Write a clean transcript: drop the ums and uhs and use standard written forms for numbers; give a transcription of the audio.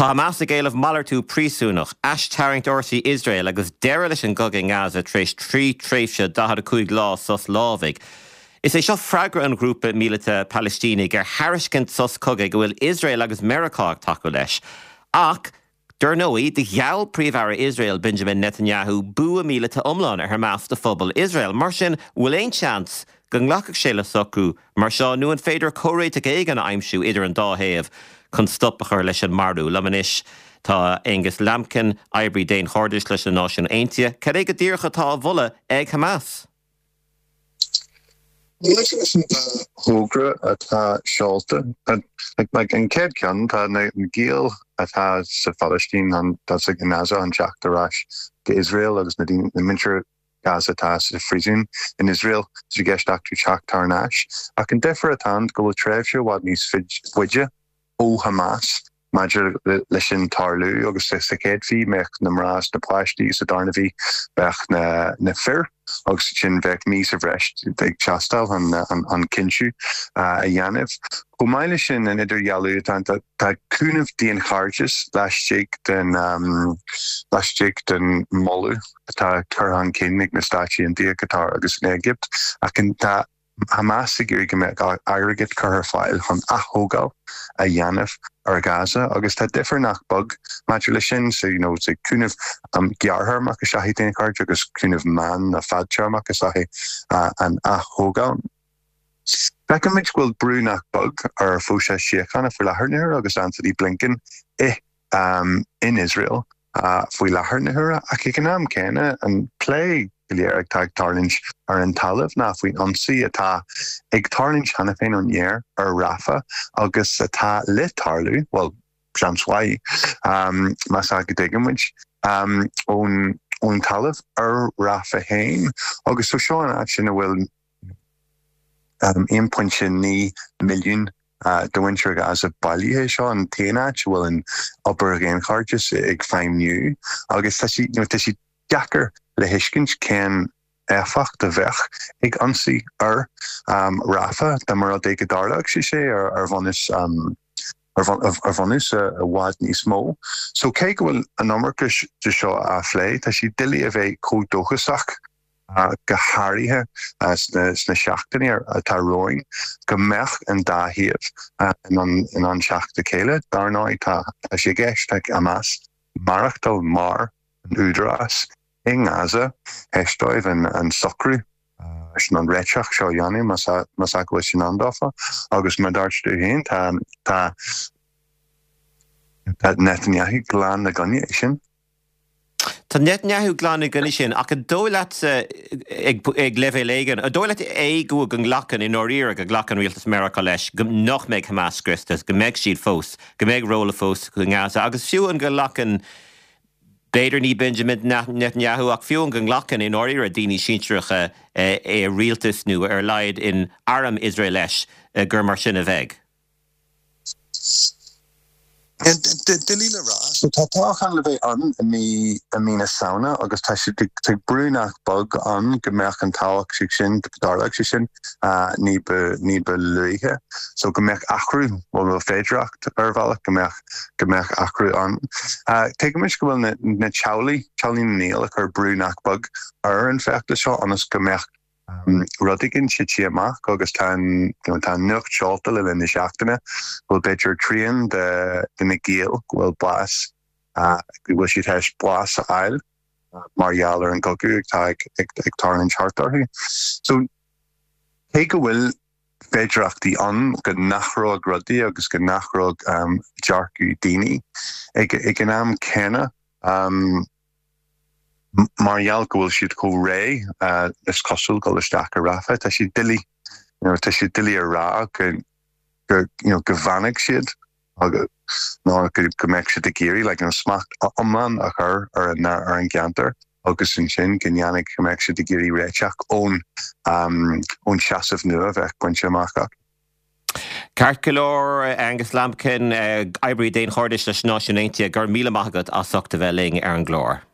Tá Hamas ag éileamh malartú príosúnach, aistarraingt fhórsaí Iosrael agus deireadh leis an gcogadh i nGaza tar éis 3 tréimhse 45 lá sos lámhaigh. Is é seo freagra an ghrúpa míleata Palaistínigh ar thairiscint sos cogaidh a bhfuil Iosrael agus Meiriceá ag tacú leis. Ach, dar ndóigh, do gheall Príomh-Aire Iosrael Benjamin Netanyahu bua míleata iomlán ar Hamas do phobal Iosrael. Mar sin, bhfuil aon seans go nglacfadh sé le socrú mar seo nó an féidir comhréiteach éigin a aimsiú idir an dá thaobh chun stop a chur leis an marú? Liom anois tá Angus Lambkin, oibrí daonchairdis leis na Náisiúin Aontaithe. Cad é go díreach atá á mholadh ag Hamas? Maidir leis an dá thogra atá seolta, an chéad cheann, tá na giall atá sa Phalaistín, atá i nGaza chun teacht ar ais go Iosrael agus na daoine, na muintir Gaza atá sa phríosún in Iosrael, tá sé i gceist acu teacht thar n-ais. Ach an difear atá ann go bhfuil tréimhse i bhfad níos faide ó Hamas maidir leis sin tarlú agus sa chéad mhí bheadh na mná is na páistí sa darna mhí bheadh na fir agus ansin bheadh mí sa bhreis ag teastáil chun an cinntiú a dhéanamh. Chomh maith leis sin an idirdhealú atá ann tá cúnamh daonchairdis laistigh den laistigh den moladh atá curtha chun cinn ag na Stáit Aontaithe, Qatar agus an Éigipt ach tá Hamas ag iarraidh go mbeadh airgead curtha ar fáil chun ath-thógáil a dhéanamh ar Ghaza agus tá difear nach beag maidir leis sin, so you know so cúnamh gearrthéarmach is ea é daonchairdeas agus cúnamh meán nó fadtéarmach is ea é an ath-thógáil. Feicimid go bhfuil brú nach beag ar phróiseas síochána faoi láthair na huaire agus Antony Blinken i in Iosrael faoi láthair na huaire ach ag an am céanna an plé go léir atá ag tarlúint ar an talamh ná faoin ionsaí atá ag tarlúint cheana féin ón aer ar Rafah agus atá le tarlú, bhuel, seans mhaith, más ea go dtuigeann muid, ón talamh ar Rafah féin. Agus so seo an áit ina bhfuil 1.9 milliún de mhuintir Ghaza bailithe. Seo an t-aon áit a bhfuil an obair dhaonchairdis ag feidhmiú agus tá sé, tá sé deacair le thuiscint cén éifeacht a bheadh ag ionsaí ar Rafah dá mba rud é go dtarlódh sé sé ar bhunús ar bhunús i bhfad níos mó. So cé go bhfuil an iomarca de seo á phlé, tá sé doiligh a bheith chomh dóchasach go háirithe sna seachtainí atá romhainn, go mbeadh an dá thaobh in ann teacht le chéile. Dar ndóigh, tá sé i gceist ag Hamas maireachtáil mar an údarás i nGaza théis dóibh an socrú sin, an réiteach seo a dhéanamh, más ea go bhfuil sé in ann dófa. Agus mar a dúirt tú féin, tá Netanyahu glan i gcoinne é sin. Tá Netanyahu glan i gcoinne sin, ach an dóigh leatsa, ag leibhéal éigin, an dóigh leat é go go nglacann, i ndáiríre, go nglacann rialtas Meiriceá leis go nach mbeidh Hamas scriosta, go mbeidh siad fós, go mbeidh ról fós i nGaza, agus fiú an go nglacann, b'fhéidir ní Benjamin Netanyahu, ach fiú an go nglacann, i ndáiríre, daoine sinsearacha i rialtas nó ar a laghad in arm Iosrael leis gur mar sin a bheidh? Doiligh le rá. So tá toghchán le bheith ann i mí i mí na Samhna agus tá sé tá brú nach beag ann go mbeadh an toghchán sin, go dtarlódh sé sin ní ba ní ba luaithe. So go mbeadh athrú, bhuel nó féidearthacht ar bhealach go mbeadh go mbeadh athrú ann. Tuigimid go bhfuil na na teaghlaigh, teaghlaigh na ngiall ag cur brú nach beag ar an bhfeachtas seo ionas go mbeadh rud éigin tite amach agus tá an tá an nuacht seolta le linn na seachtaine go bhfuil b'fhéidir trian de de na giall go bhfuil bás go bhfuil siad théis bás a fháil mar gheall ar an gcogadh atá ag ag ag tarlúint thart orthu. So cé go bhfuil féidearthachtaí ann go n-athródh rudaí agus go n-athródh dearcadh daoine ag ag an am céanna, Mar gheall go bhfuil siad chomh réidh, is cosúil, dul isteach i Rafah, tá sé doiligh, you know, tá sé doiligh a rá go, go, you know, go bhfanfaidh siad nó go, go mbeadh siad ag iarraidh like, you know, smacht iomlán a chur ar an, ar an gceantar agus ansin go ndéanfaidh, go mbeadh siad ag iarraidh réiteach ón, ón seasamh nua a bheadh bainte amach acu. Ceart go leor, Angus Lambkin, oibrí daonchairdis leis na Náisiúin Aontaithe, go raibh míle maith agat as ucht a bheith linn ar an gclár.